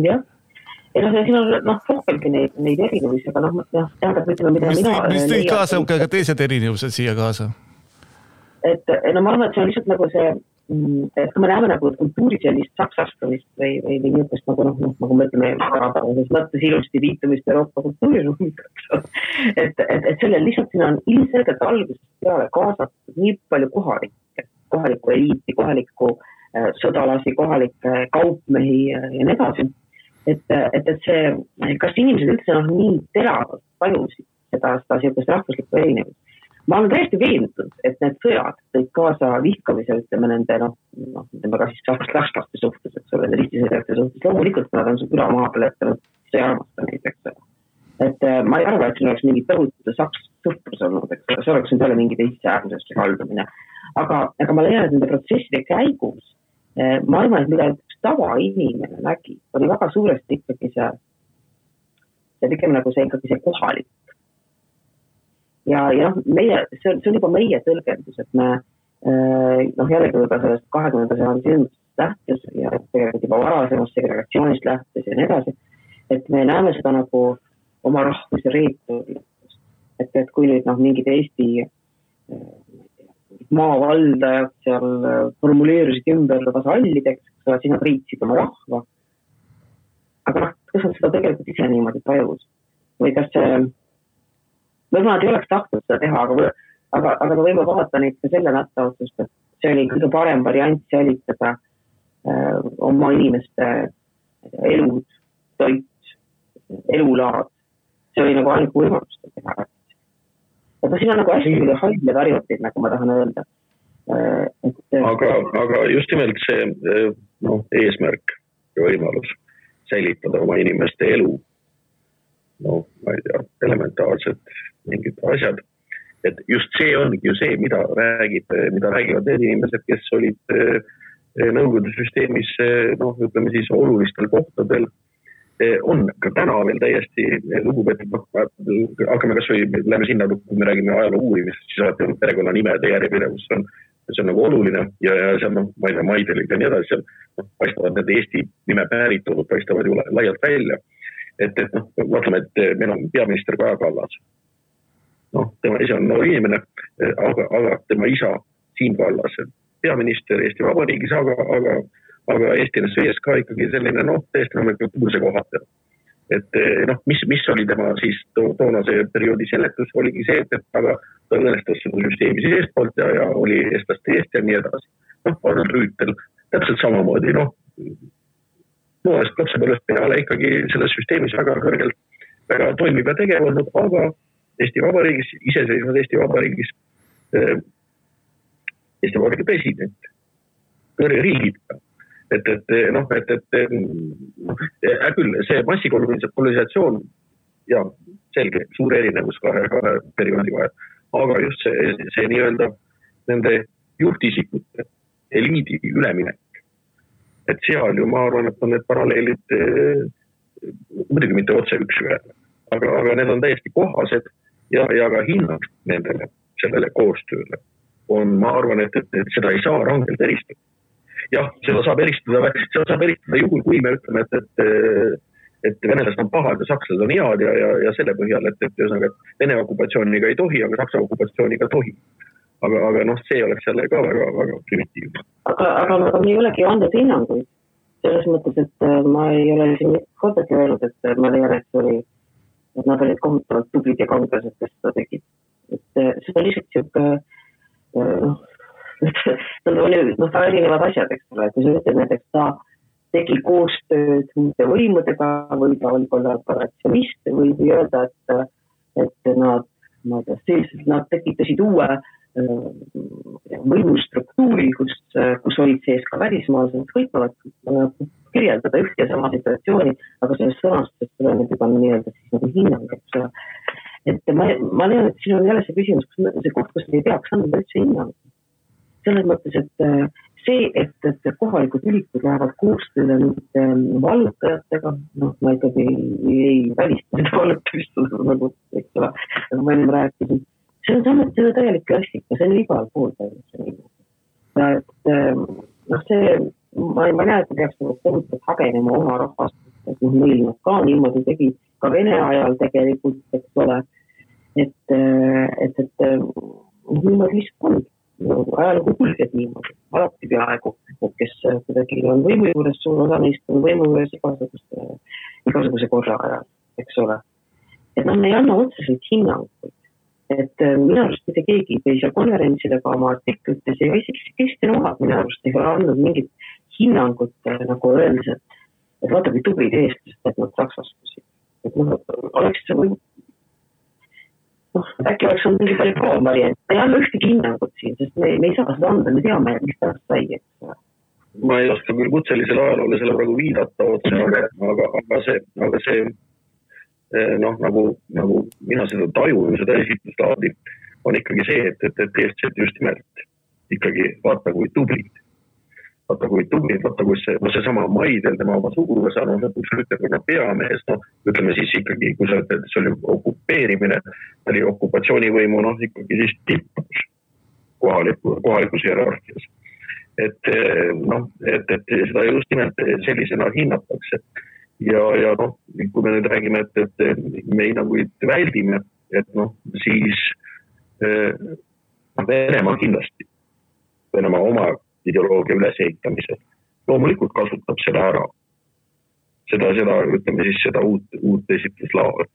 Jah. Ja siin on rohkelgi neid erinevusi, aga tähendab, ütleme, mida mis tõid kaasa ka teised erinevused siia kaasa? Et ma arvan, et see on lihtsalt see, et kui me näeme kultuuri sellist saksastamist või niisugust nagu me ütleme, mõttes ilusti viitumist Euroopa kultuuriruumiga, et sellel lihtsalt siin on ilmselgelt algusest peale kaasatud nii palju kohalikku eliiti, kohalikku sõdalasi, kohalikke kaupmehi ja nii edasi. Et see, kas inimesed üldse nii teravalt tajusid seda niisugust rahvuslikku erinevust. Ma olen täiesti veendunud, et need sõjad tõid kaasa vihkamise, ütleme nende, ütleme ka siis sakslaste suhtes, eks ole, ristisõidajate suhtes. Loomulikult nad on üle maa peal ettanud, see armasta neid, eks ole. Et ma ei arva, et siin oleks mingi tõhutu saks sõprus olnud, eks ole, see oleks nüüd jälle mingi teiste äärmusesse haldumine. Aga ma leian, et nende protsesside käigus, ma arvan, et mida üks tavainimene nägi, oli väga suuresti ikkagi see pigem ikkagi see kohalik. Ja see on juba meie tõlgendus, et me jällegi juba sellest 20. sajandi sündmustest lähtes ja tegelikult juba varasemast segregatsioonist lähtes ja nii edasi, et me näeme seda oma rahvuse reeturlust. Et kui nüüd mingid Eesti maavaldajad seal formuleerisid ümber vasallideks, siis nad riitsid oma rahva. Aga kas on seda tegelikult ise niimoodi tajus? Või kas võib-olla nad ei oleks tahtnud seda teha, aga me võime vaadata neid ka selle nätta otsust, et see oli kõige parem variant säilitada oma inimeste elud, toit, elulaad. See oli ainuke võimalus teha. Aga siin on hästi haidle variantid, nagu ma tahan öelda. Aga just nimelt see eesmärk ja võimalus säilitada oma inimeste elu, ma ei tea, elementaarsed mingid asjad. Et just see ongi ju see, mida räägivad need inimesed, kes olid Nõukogude süsteemis, ütleme siis olulistel kohtadel, on ka täna veel täiesti lugupeetud, hakkame kas või läbi sinna, kui me räägime ajaloo uurimist, siis alati perekonna nimede järjepidevus see on oluline ja see on, ma ei tea, Maidelik ja nii edasi, seal paistavad need Eesti nime päritolud, paistavad ju laialt välja. Et vaatame, et meil on peaminister Kaja Kallas. Tema ise on noor inimene, aga tema isa Siim Kallas peaminister Eesti Vabariigis, aga Eesti NSV ka ikkagi selline, täiesti nomenklatuurse kohata. Et mis oli tema siis toonase perioodi seletus, oligi see, et aga ta õnnestas seda süsteemi siis eestpoolt ja oli eestlaste eest ja nii edasi. Arnold Rüütel täpselt samamoodi, noorest lapsepõlvest peale ikkagi selles süsteemis väga kõrgelt väga toimib ja tegev olnud, aga Eesti Vabariigis, iseseisvad Eesti Vabariigis president, kõrge riigipea. Küll see massikolonialisatsioon ja selge, suur erinevus kahe perioodi vahel, aga just see nii-öelda nende juhtisikute eliidi üleminek. Et seal ju ma arvan, et on need paralleelid muidugi mitte otse üks ühele, aga need on täiesti kohased ja ka hinnang nendele, sellele koostööle on, ma arvan, et seda ei saa rangelt eristada. Jah, seda saab eristada juhul, kui me ütleme, et venelased on pahad ja sakslased on head ja selle põhjal, et Vene okupatsiooniga ei tohi, aga Saksa okupatsiooniga tohi. Aga see oleks jälle ka väga, väga primitiivne. Aga me ei olegi andnud hinnanguid. Selles mõttes, et ma ei ole siin kordagi öelnud, et ma leian, et nad olid kohutavalt tublid ja kangased, kes seda tegid. Et see on lihtsalt siuke nad oli erinevad asjad, eks ole, kui sa ütled näiteks, ta tegi koostööd muude võimudega või ta oli kollaboratsionist või öelda, et nad tekitasid uue võimustruktuuri, kus olid sees ka välismaalased, võitavad kirjeldada üht ja sama situatsiooni, aga sellest sõnastust tuleb juba nii-öelda siis nagu hinnang, eks ole. Et ma leian, et siin on jälle see küsimus, see koht, kus me ei peaks anda üldse hinnang. Selles mõttes, et see, et kohalikud ülikud lähevad koostööle nüüd vallutajatega, ma ikkagi ei välista seda vallutamist, nagu ma enne rääkisin. See on samuti täielik klassika, see on igal pool täielik. Ma ei näe, et peaks kohutavalt hagenema oma rahvast, et meil ka niimoodi tegi ka Vene ajal tegelikult, eks ole, et niimoodi lihtsalt on. Ajalugu kulged niimoodi, alati peaaegu, kes kuidagi on võimu juures, suur osa neist on võimu juures igasuguse korra ajal, eks ole. Et me ei anna otseselt hinnanguid, et minu arust mitte keegi teise konverentsidega oma artiklites ja isegi Kristjan Ohad minu arust ei ole andnud mingit hinnangut nagu öeldes, et vaata kui tublid eestlased, et nad saksastusid. Et oleks see või äkki oleks on mingi palju proovariant. Ei anna ühtegi hinnangut siin, sest me ei saa seda anda, me teame, mis pärast sai. Ma ei oska küll kutselisele ajaloole selle praegu viidata otse, aga see nagu mina seda tajun, seda esitluslaadi, on ikkagi see, et eestlased just nimelt ikkagi vaata kui tublid. Vaata kui see sama Maidel, tema oma sugulase lõpuks Rüütelkonna peamees, ütleme siis ikkagi, kui sa ütled, et see oli okupeerimine, oli okupatsioonivõimu, ikkagi siis tippus kohalikus hierarhias. Et seda just nimelt sellisena hinnatakse. Ja kui me nüüd räägime, et me hinnanguid väldime, et siis Venemaa kindlasti, Venemaa oma ideoloogia ülesehitamisel. Loomulikult kasutab seda ära. Seda ütleme siis seda uut esitluslaadi.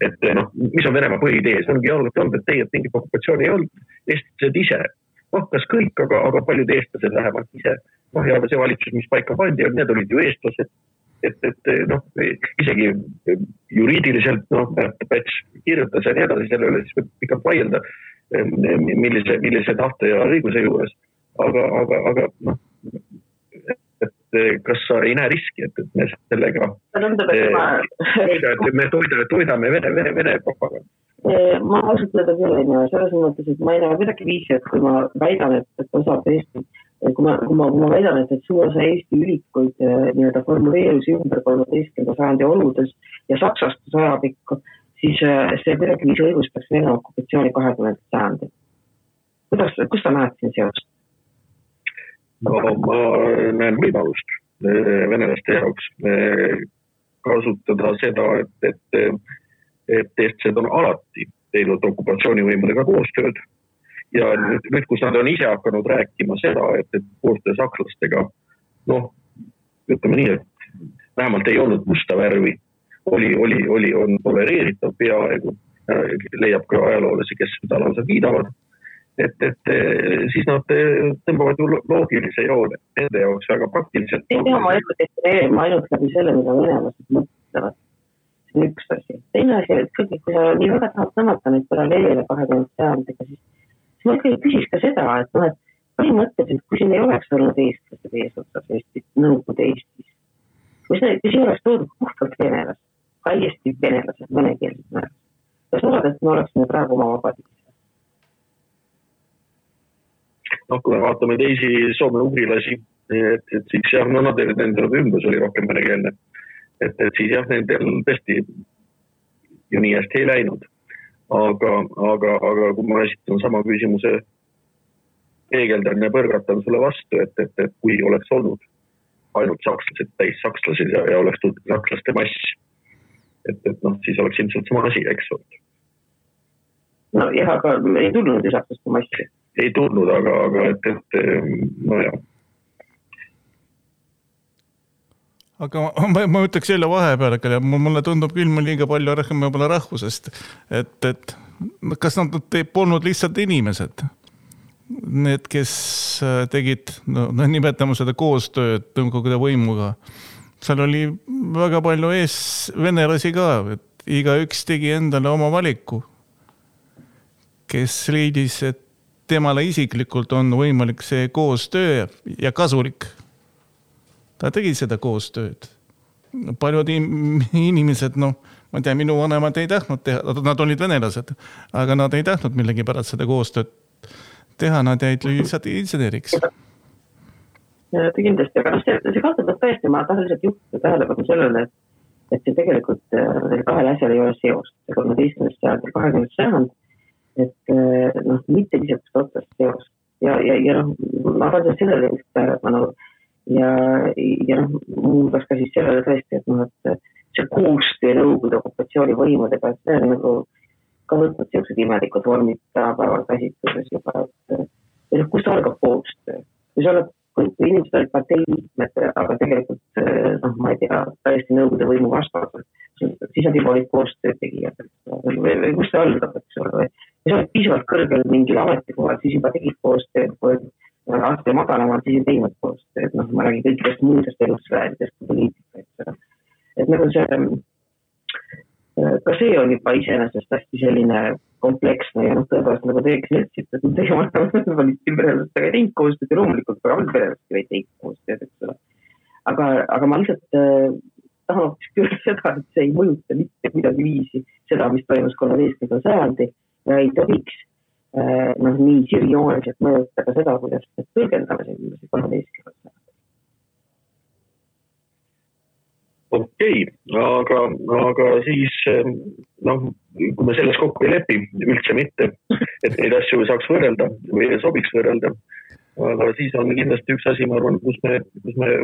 Et mis on Venemaa põhiidee? See ongi olnud, et teie mingit okupatsiooni ei olnud. Eestlased ise. Kas kõik, aga paljud eestlased vähemalt ise. Ja see valitsus, mis paika pandi, need olid ju eestlased. Et isegi juriidiliselt, Päts kirjutas ja nii edasi, selle üle siis võib pikalt vaielda, millise tahte ja õiguse juures. Aga kas sa ei näe riski, et me sellega toidame Vene propaganda? Ma ausalt öelda küll ei näe, selles mõttes, et ma ei näe midagi viisi, et kui ma väidan, et osad Eesti, kui ma väidan, et suur osa Eesti ülikuid nii-öelda formuleerusi ümber 13. sajandi oludes ja saksastus ajapikku, siis see kuidagi viisi õigustaks Vene okupatsiooni 20. sajandi. Kus sa näed siin seost? Ma näen võimalust venelaste jaoks kasutada seda, et eestlased on alati teinud okupatsioonivõimudega koostööd ja nüüd, kus nad on ise hakanud rääkima seda, et koostöö sakslastega, ütleme nii, et vähemalt ei olnud musta värvi, on tolereeritav peaaegu, leiab ka ajaloolasi, kes seda lausa kiidavad, et siis nad tõmbavad ju loogilise joone, nende jaoks väga praktiliselt. Ei tea, ma ainult läbi selle, mida venelased mõtlevad. See on üks asi. Teine asi, et kui sa nii väga tahad tõmmata neid paralleele 20. sajandega, siis ma ikkagi küsiks ka seda, et põhimõtteliselt, kui siin ei oleks olnud eestlased eesotsas Eestis, Nõukogude Eestis, kui siin oleks toodud puhtalt venelased, täiesti venelased, venekeelsed määras, kas oled, et me oleksime praegu oma vabadis? Kui me vaatame teisi soome-ugrilasi, et siis jah, nendel ümbrus oli rohkem venekeelne. Et siis jah, nendel tõesti ju nii hästi ei läinud. Aga kui ma esitan sama küsimuse, peegeldan ja põrgatan sulle vastu, et kui oleks olnud ainult sakslased, täis sakslased ja oleks tulnud sakslaste mass, et siis oleks ilmselt sama asi, eks olnud. No jah, aga ei tulnud ju sakslaste massi. Ei tulnud, aga no jah. Aga ma ütleks jälle vahepeal, mulle tundub küll liiga palju rääkima rahvusest, et kas nad polnud lihtsalt inimesed, need, kes tegid, nimetame seda koostööd Nõukogude võimuga. Seal oli väga palju venelasi ka, et igaüks tegi endale oma valiku, kes leidis, et temale isiklikult on võimalik see koostöö ja kasulik. Ta tegi seda koostööd. Paljud inimesed, ma tea, minu vanemad ei tahtnud teha, nad olid venelased, aga nad ei tahtnud millegi pärast seda koostööd teha, nad jäid lihtsalt inseneriks. Ja kindlasti, aga see kahtletab tõesti, ma tahan lihtsalt juhtida tähelepanu sellele, et see tegelikult kahel asjal ei ole seost. See 13. sajand ja 20. sajand, et mitte lihtsalt otsast seost. Ja ma tahan sellele just tähelepanu ja muudas ka siis sellele tõesti, et see koostöö Nõukogude okupatsiooni võimudega, et see on nagu ka võtnud sellised imelikud vormid tänapäeval käsitluses juba, et kus algab koostöö? Kui inimesed olid partei liikmed, aga tegelikult, ma ei tea, täiesti Nõukogude võimu vastased, siis nad juba olid koostöö tegijad, või kus see algab, eks ole, või sa oled piisavalt kõrgel mingil ametikohal, siis juba tegid koostöö, aasta madalamalt siis ei teinud koostööd, ma räägin kõikidest muudest elusvääridest poliitika, et nagu see, ka see on juba iseenesest hästi selline kompleksne ja tõepoolest nagu teeks netsilt, et teie valitsipärelastega ei teinud koostööd ja loomulikult ka valitsipärelastega ei teinud koostööd, eks ole. Aga ma lihtsalt tahan hoopis küll seda, et see ei mõjuta mitte kuidagi viisi seda, mis toimus 13. sajandi ja ei tohiks nii sirjooniselt mõjutada seda, kuidas tõlgendame see 13. sajandi. Okei, aga siis, kui me selles kokku ei lepi, üldse mitte, et neid asju saaks võrrelda või sobiks võrrelda, aga siis on kindlasti üks asi, ma arvan, kus me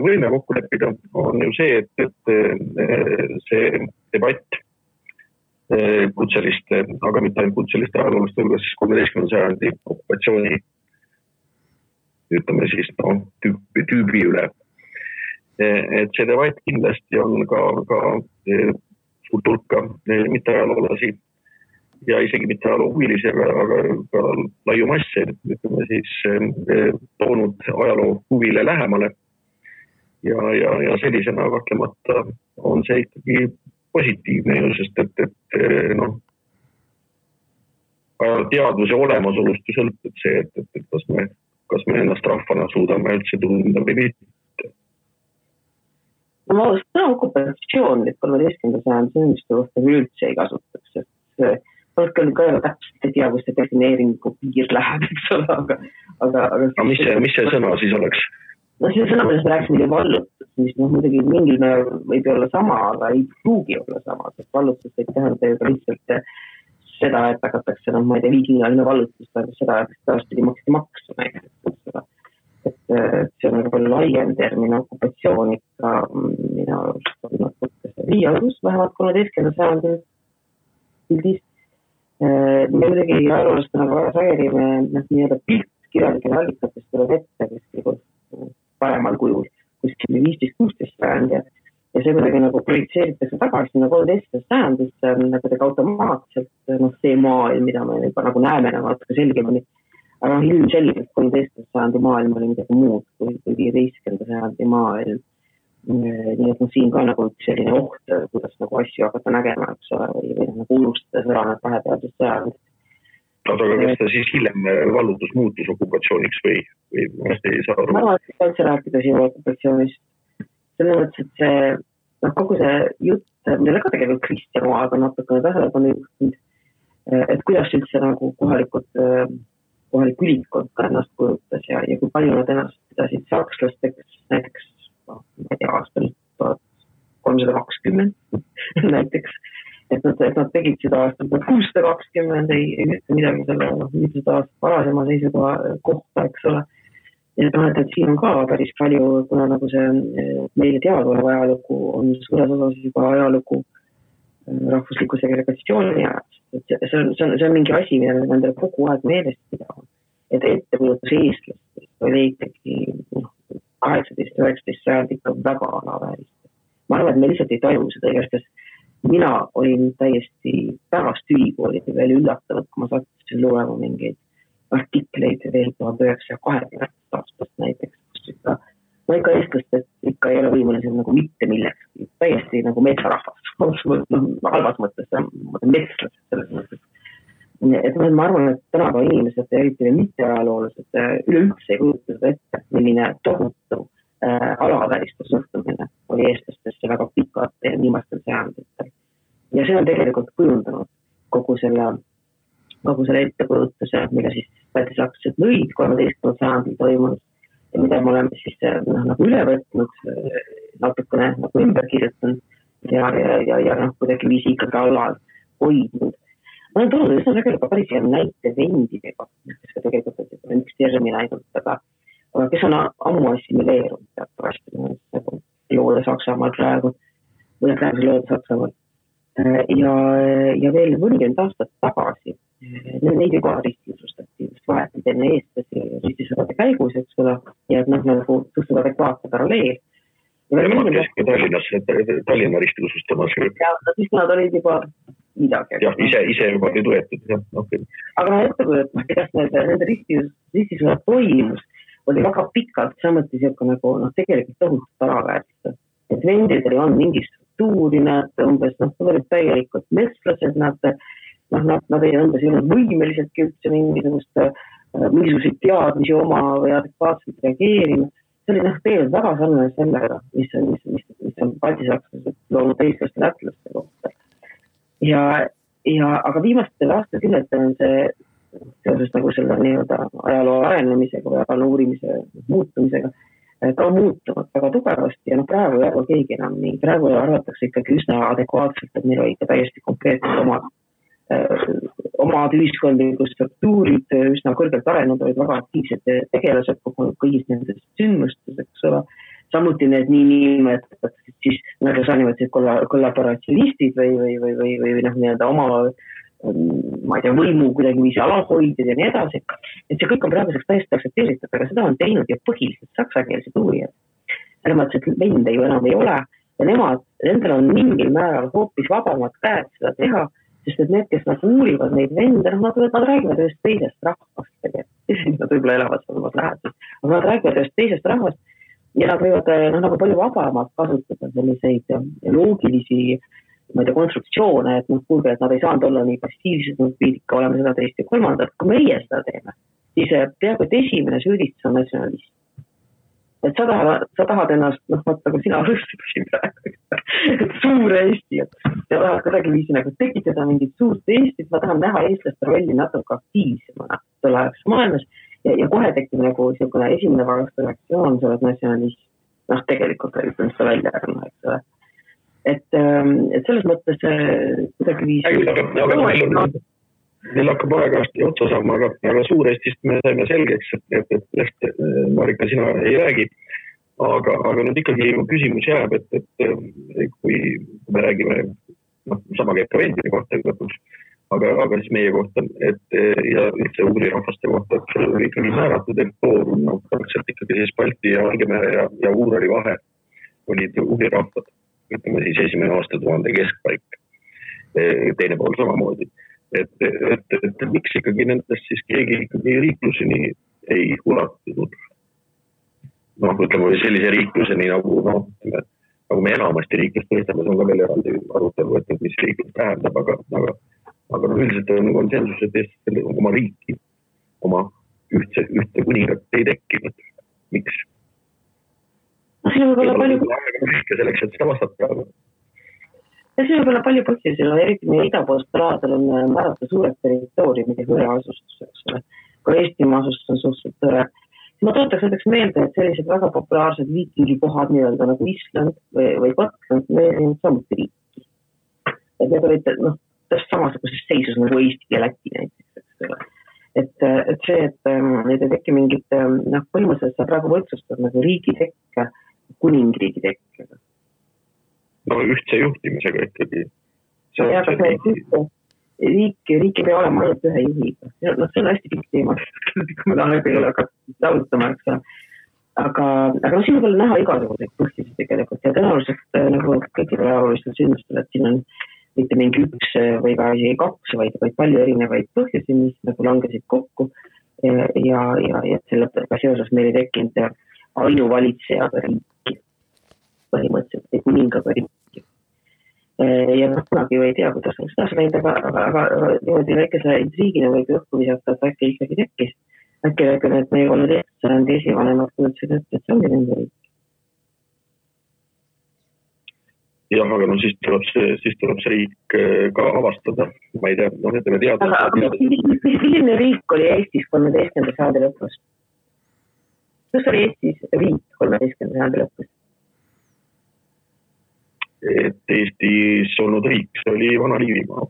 võime kokku leppida, on ju see, et see debatt kutseliste, aga mitte ainult kutseliste ajalooliste hulgas 13. sajandi okupatsiooni, ütleme siis, tüübi üle. Et see debatt kindlasti on ka suurt hulka mitte ajaloolasi ja isegi mitte ajaloohuvilisi, aga ka laiu masse, ütleme siis, toonud ajaloo huvile lähemale. Ja sellisena kahtlemata on see ikkagi positiivne ju, sest et teadvuse olemasolust sõltub see, et kas me ennast rahvana suudame üldse tunda või mitte. Ma seda okupatsioon, et 13. sajand inimeste kohta üldse ei kasutaks, et polnud küll ka täpselt ei tea, kus see defineeringu piir läheb, eks ole, aga mis see sõna siis oleks? See sõna, millest me rääksime vallutus, mis muidugi mingil määral võib olla sama, aga ei pruugi olla sama, sest vallutus võib tähendada ju ka lihtsalt seda, et hakatakse, ma ei tea, viikingaline vallutus, seda, et taastpidi maksti maksu näiteks. Et see on väga laiem termin okupatsioon ikka, mina arust on natuke see riialus, vähemalt 13. sajandil pildis. Me muidugi ajaloolastena väga sageli nii-öelda piltkirjalikele allikatest tuleb ette kuskil paremal kujul, kuskil 15-16 sajand ja see kuidagi nagu projitseeritakse tagasi 13. sajandisse kuidagi automaatselt see maailm, mida me juba nagu näeme natuke selgemini. Aga ilmselgelt 13. sajandi maailm oli midagi muud kui 15. sajandi maailm. Nii et siin ka nagu selline oht, kuidas nagu asju hakata nägema, eks ole, või nagu unustades ära need vahepealsed sajandid. Aga kas ta siis hiljem vallutus muutus okupatsiooniks või ei saa aru? Ma arvan, et üldse rääkida siin okupatsioonist. Selle mõttes, et see kogu see jutt, millele ka tegelikult Kristjan Oaga natuke tähelepanu juhtinud, et kuidas üldse nagu kohalik ülikond ka ennast kujutas ja kui palju nad ennast pidasid sakslasteks näiteks ma ei tea, aastal 1320 näiteks, et nad tegid seda aastal 620, ei ütle midagi selle mitusada aastat varasema seisukoha kohta, eks ole. Et siin on ka päris palju, kuna nagu see meile teaduolev ajalugu on suures osas juba ajalugu rahvusliku segregatsiooni ajast. See on mingi asi, mida me endale kogu aeg meelest pidama. Et ettekujutus eestlastest oli ikkagi 18-19 sajand ikka väga alaväärist. Ma arvan, et me lihtsalt ei taju seda igast, mina olin täiesti pärast ülikooli veel üllatanud, kui ma sattusin loema mingeid artikleid veel 1920 aastast näiteks, kus ikka eestlastest ikka ei ole võimelised nagu mitte millekski, täiesti nagu metsarahvas, halvas mõttes, metslased selles mõttes. Et ma arvan, et tänapäeva inimesed, eriti mitte ajaloolased, üleüldse ei kujuta seda ette, milline tohutu alavääristus suhtumine oli eestlastesse väga pikad viimastel sajanditel. Ja see on tegelikult kujundanud kogu selle ettekujutuse, mille siis pätisaktused lõid 13. sajandil toimunud ja mida me oleme siis nagu üle võtnud, natukene nagu ümber kirjutanud ja kuidagi viisi ikkagi alal hoidnud. Ma olen tulnud üsna tegelikult päris hea näite vendidega, kes ka tegelikult on üks termin ainult, aga kes on ammu assimileerunud teatavasti loode Saksamaal praegu, või praeguse loode Saksamaal. Ja veel 40 aastat tagasi neid juba ristisustati just vahetid enne eestlasi ristisõdade käigus, eks ole, ja et nagu suhteliselt adekvaatne paralleel. Nemad käisid Tallinna ristilusustamas. Ja siis nad olid juba midagi. Jah, ise juba olid võetud. Okay. Aga ettekujutus, kuidas nende ristisõdad toimus, oli väga pikalt samuti nagu tegelikult tohutult alaväärist. Et vendidel on mingi struktuuri, nad umbes olid täielikult metslased, nad ei umbes ei olnud võimeliseltki üldse mingisuguseid teadmisi oma või adekvaatselt reageerima. See oli tegelikult väga sarnane sellega, mis on baltisakslased loonud eestlaste lätlaste kohta. Aga viimastel aastakümnetel on see seoses nagu selle nii-öelda ajaloo arenemisega või ajaloo uurimise muutumisega ka muutunud väga tugevasti ja praegu ei arva keegi enam nii. Praegu arvatakse ikkagi üsna adekvaatselt, et meil oli ikka täiesti konkreetselt omad ühiskondlikud struktuurid üsna kõrgelt arenenud, olid väga aktiivsed tegelased kõigis nendes sündmustes, eks ole. Samuti need niimetatud siis, nagu sa nimetasid, kollaboratsionistid või nii-öelda oma ma ei tea, võimu kuidagi viisi alalhoidjad ja nii edasi. Et see kõik on praeguseks täiesti aktsepteeritud, aga seda on teinud ja põhiliselt saksakeelsed uurijad. Selles mõttes, et vende ju enam ei ole ja nendel on mingil määral hoopis vabamad käed seda teha, sest et need, kes uurivad neid vende, nad räägivad ühest teisest rahvast tegelikult. Nad võib-olla elavad olevas lähedus, aga nad räägivad ühest teisest rahvast ja nad võivad nagu palju vabamalt kasutada selliseid loogilisi konstruktsioone, et kuulge, et nad ei saanud olla nii passiivsed, nad pidid ikka olema seda teist ja kolmandat. Kui meie seda teeme, siis peaaegu et esimene süüdistus on natsionalist. Et sa tahad ennast, vaata, kui sina rõstisin praegu, et suur Eesti, ja tahad kuidagi viisi nagu tekitada mingit suurt Eestit, ma tahan näha eestlaste rolli natuke aktiivsemana selle ajaks maailmas ja kohe tekib nagu esimene varaste reaktsioon, sa oled natsionalist. Tegelikult ütlen seda välja, eks ole. Et selles mõttes kuidagi viisi... Neil hakkab aegasti otsa saama, aga Suur-Eestist me saime selgeks, et Marika, sina ei räägi. Aga nüüd ikkagi küsimus jääb, et kui me räägime sama käib ka vendide kohta, aga siis meie kohta, et ja üldse ugri rahvaste kohta, et seal oli ikkagi määratud territoorium, praktiliselt ikkagi siis Balti ja Valgemere ja Uurali vahe olid ugri rahvad, ütleme siis esimene aastatuhande keskpaik, teine pool samamoodi. Et miks ikkagi nendest siis keegi ikkagi riikluseni ei ulatunud? Ütleme sellise riikluseni nagu me enamasti riiklust mõistame, see on ka veel eraldi arutelu, et mis riiklus tähendab, aga üldiselt on konsensus, et Eestis oma riiki, oma ühte kuningat ei tekkinud. Miks? Siin on võib-olla palju selleks, et seda vastata. Ja siin on võib-olla palju põhjusi, eriti meie idapoolstel aladel on määrata suured territooriumid ja hõreasustus, kui Eestimaa asustus on suhteliselt tõre. Ma tootaks näiteks meelde, et sellised väga populaarsed viikingikohad nii-öelda nagu Island või Gotland, need on samuti riiki. Et need olid täpselt samasuguses seisus nagu Eesti ja Läti näiteks. Et see, et need ei teki mingit, põhimõtteliselt sa praegu võrdsustab nagu riigi tekke, kuningriigi tekke. Ühtse juhtimisega ikkagi. Riik ei pea olema ainult ühe juhiga. See on hästi pikk teema, kui me tahan ei ole lautama, aga siin on veel näha igasuguseid põhjusi tegelikult ja tõenäoliselt nagu kõikidel ajaloolistel sündmustel, et siin on mitte mingi üks või ka isegi kaks, vaid palju erinevaid põhjusi, mis nagu langesid kokku ja sellega seoses meil ei tekkinud ainuvalitsejaga riiki, põhimõtteliselt ei kuningaga riiki. Ja kunagi ei tea, kuidas oleks taas läinud, aga niimoodi väikese intriigina võib õhku visata, et äkki ikkagi tekkis. Äkki et meie 13. sajandi esivanemad kujutsid, et see ongi nende riik. Jah, aga siis tuleb see riik ka avastada. Ma ei tea, ütleme teada. Aga milline riik oli Eestis 13. sajandi lõpus? Kus oli Eestis riik 13. sajandi lõpus? Et Eestis olnud riik, see oli Vana-Liivimaa.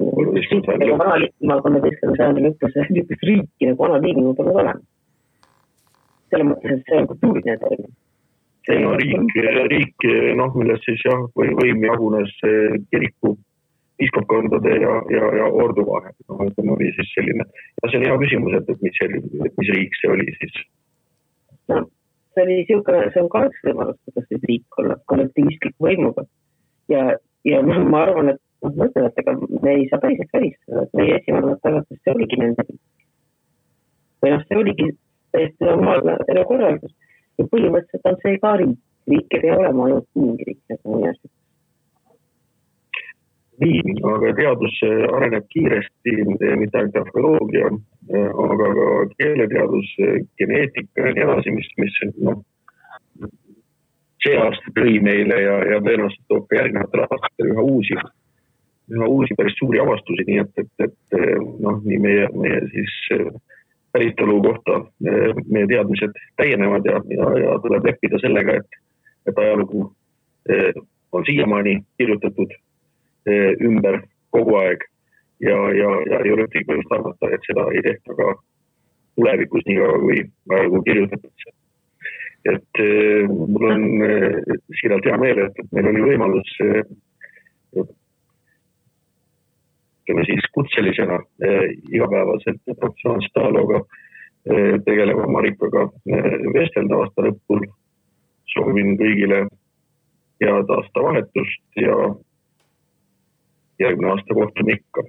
Vana-Liivimaa 13. sajandi lõpus riiki nagu Vana-Liivimaa pole olema. Selle mõttes, et see on kultuuriline termin. Riik, milles siis võim jagunes kiriku, piiskopkondade ja ordu vahel. Oli siis selline. Ja see on hea küsimus, et mis riik see oli siis? See on ka üks võimalus, kuidas siis riik olla kollektivistliku võimuga. Ja ma arvan, et mõtlen, et ega me ei saa päriselt välistada, et meie esivanemad tagatud, see oligi nende riik. Või see oligi täiesti normaalne korraldus. Ja põhimõtteliselt on see ka riik. Riik ei pea olema ainult mingi riik. Nii, aga teadus areneb kiiresti, mitte ainult arheoloogia, aga ka keeleteadus, geneetika ja nii edasi, mis see aasta tõi meile ja tõenäoliselt toob ka järgnevatel aastatel üha uusi päris suuri avastusi, nii et nii meie siis päritolu kohta meie teadmised täienevad ja tuleb leppida sellega, et ajalugu on siiamaani kirjutatud ümber kogu aeg ja ei ole ühtegi põhjust arvata, et seda ei tehta ka tulevikus nii kaua, kui ajalugu kirjutatakse. Et mul on siiralt hea meel, et meil oli võimalus siis kutselisena igapäevaselt professionaalset ajalooga tegeleva Marikaga vestelda aasta lõpul. Soovin kõigile head aastavahetust ja järgmine aasta kohtume ikka.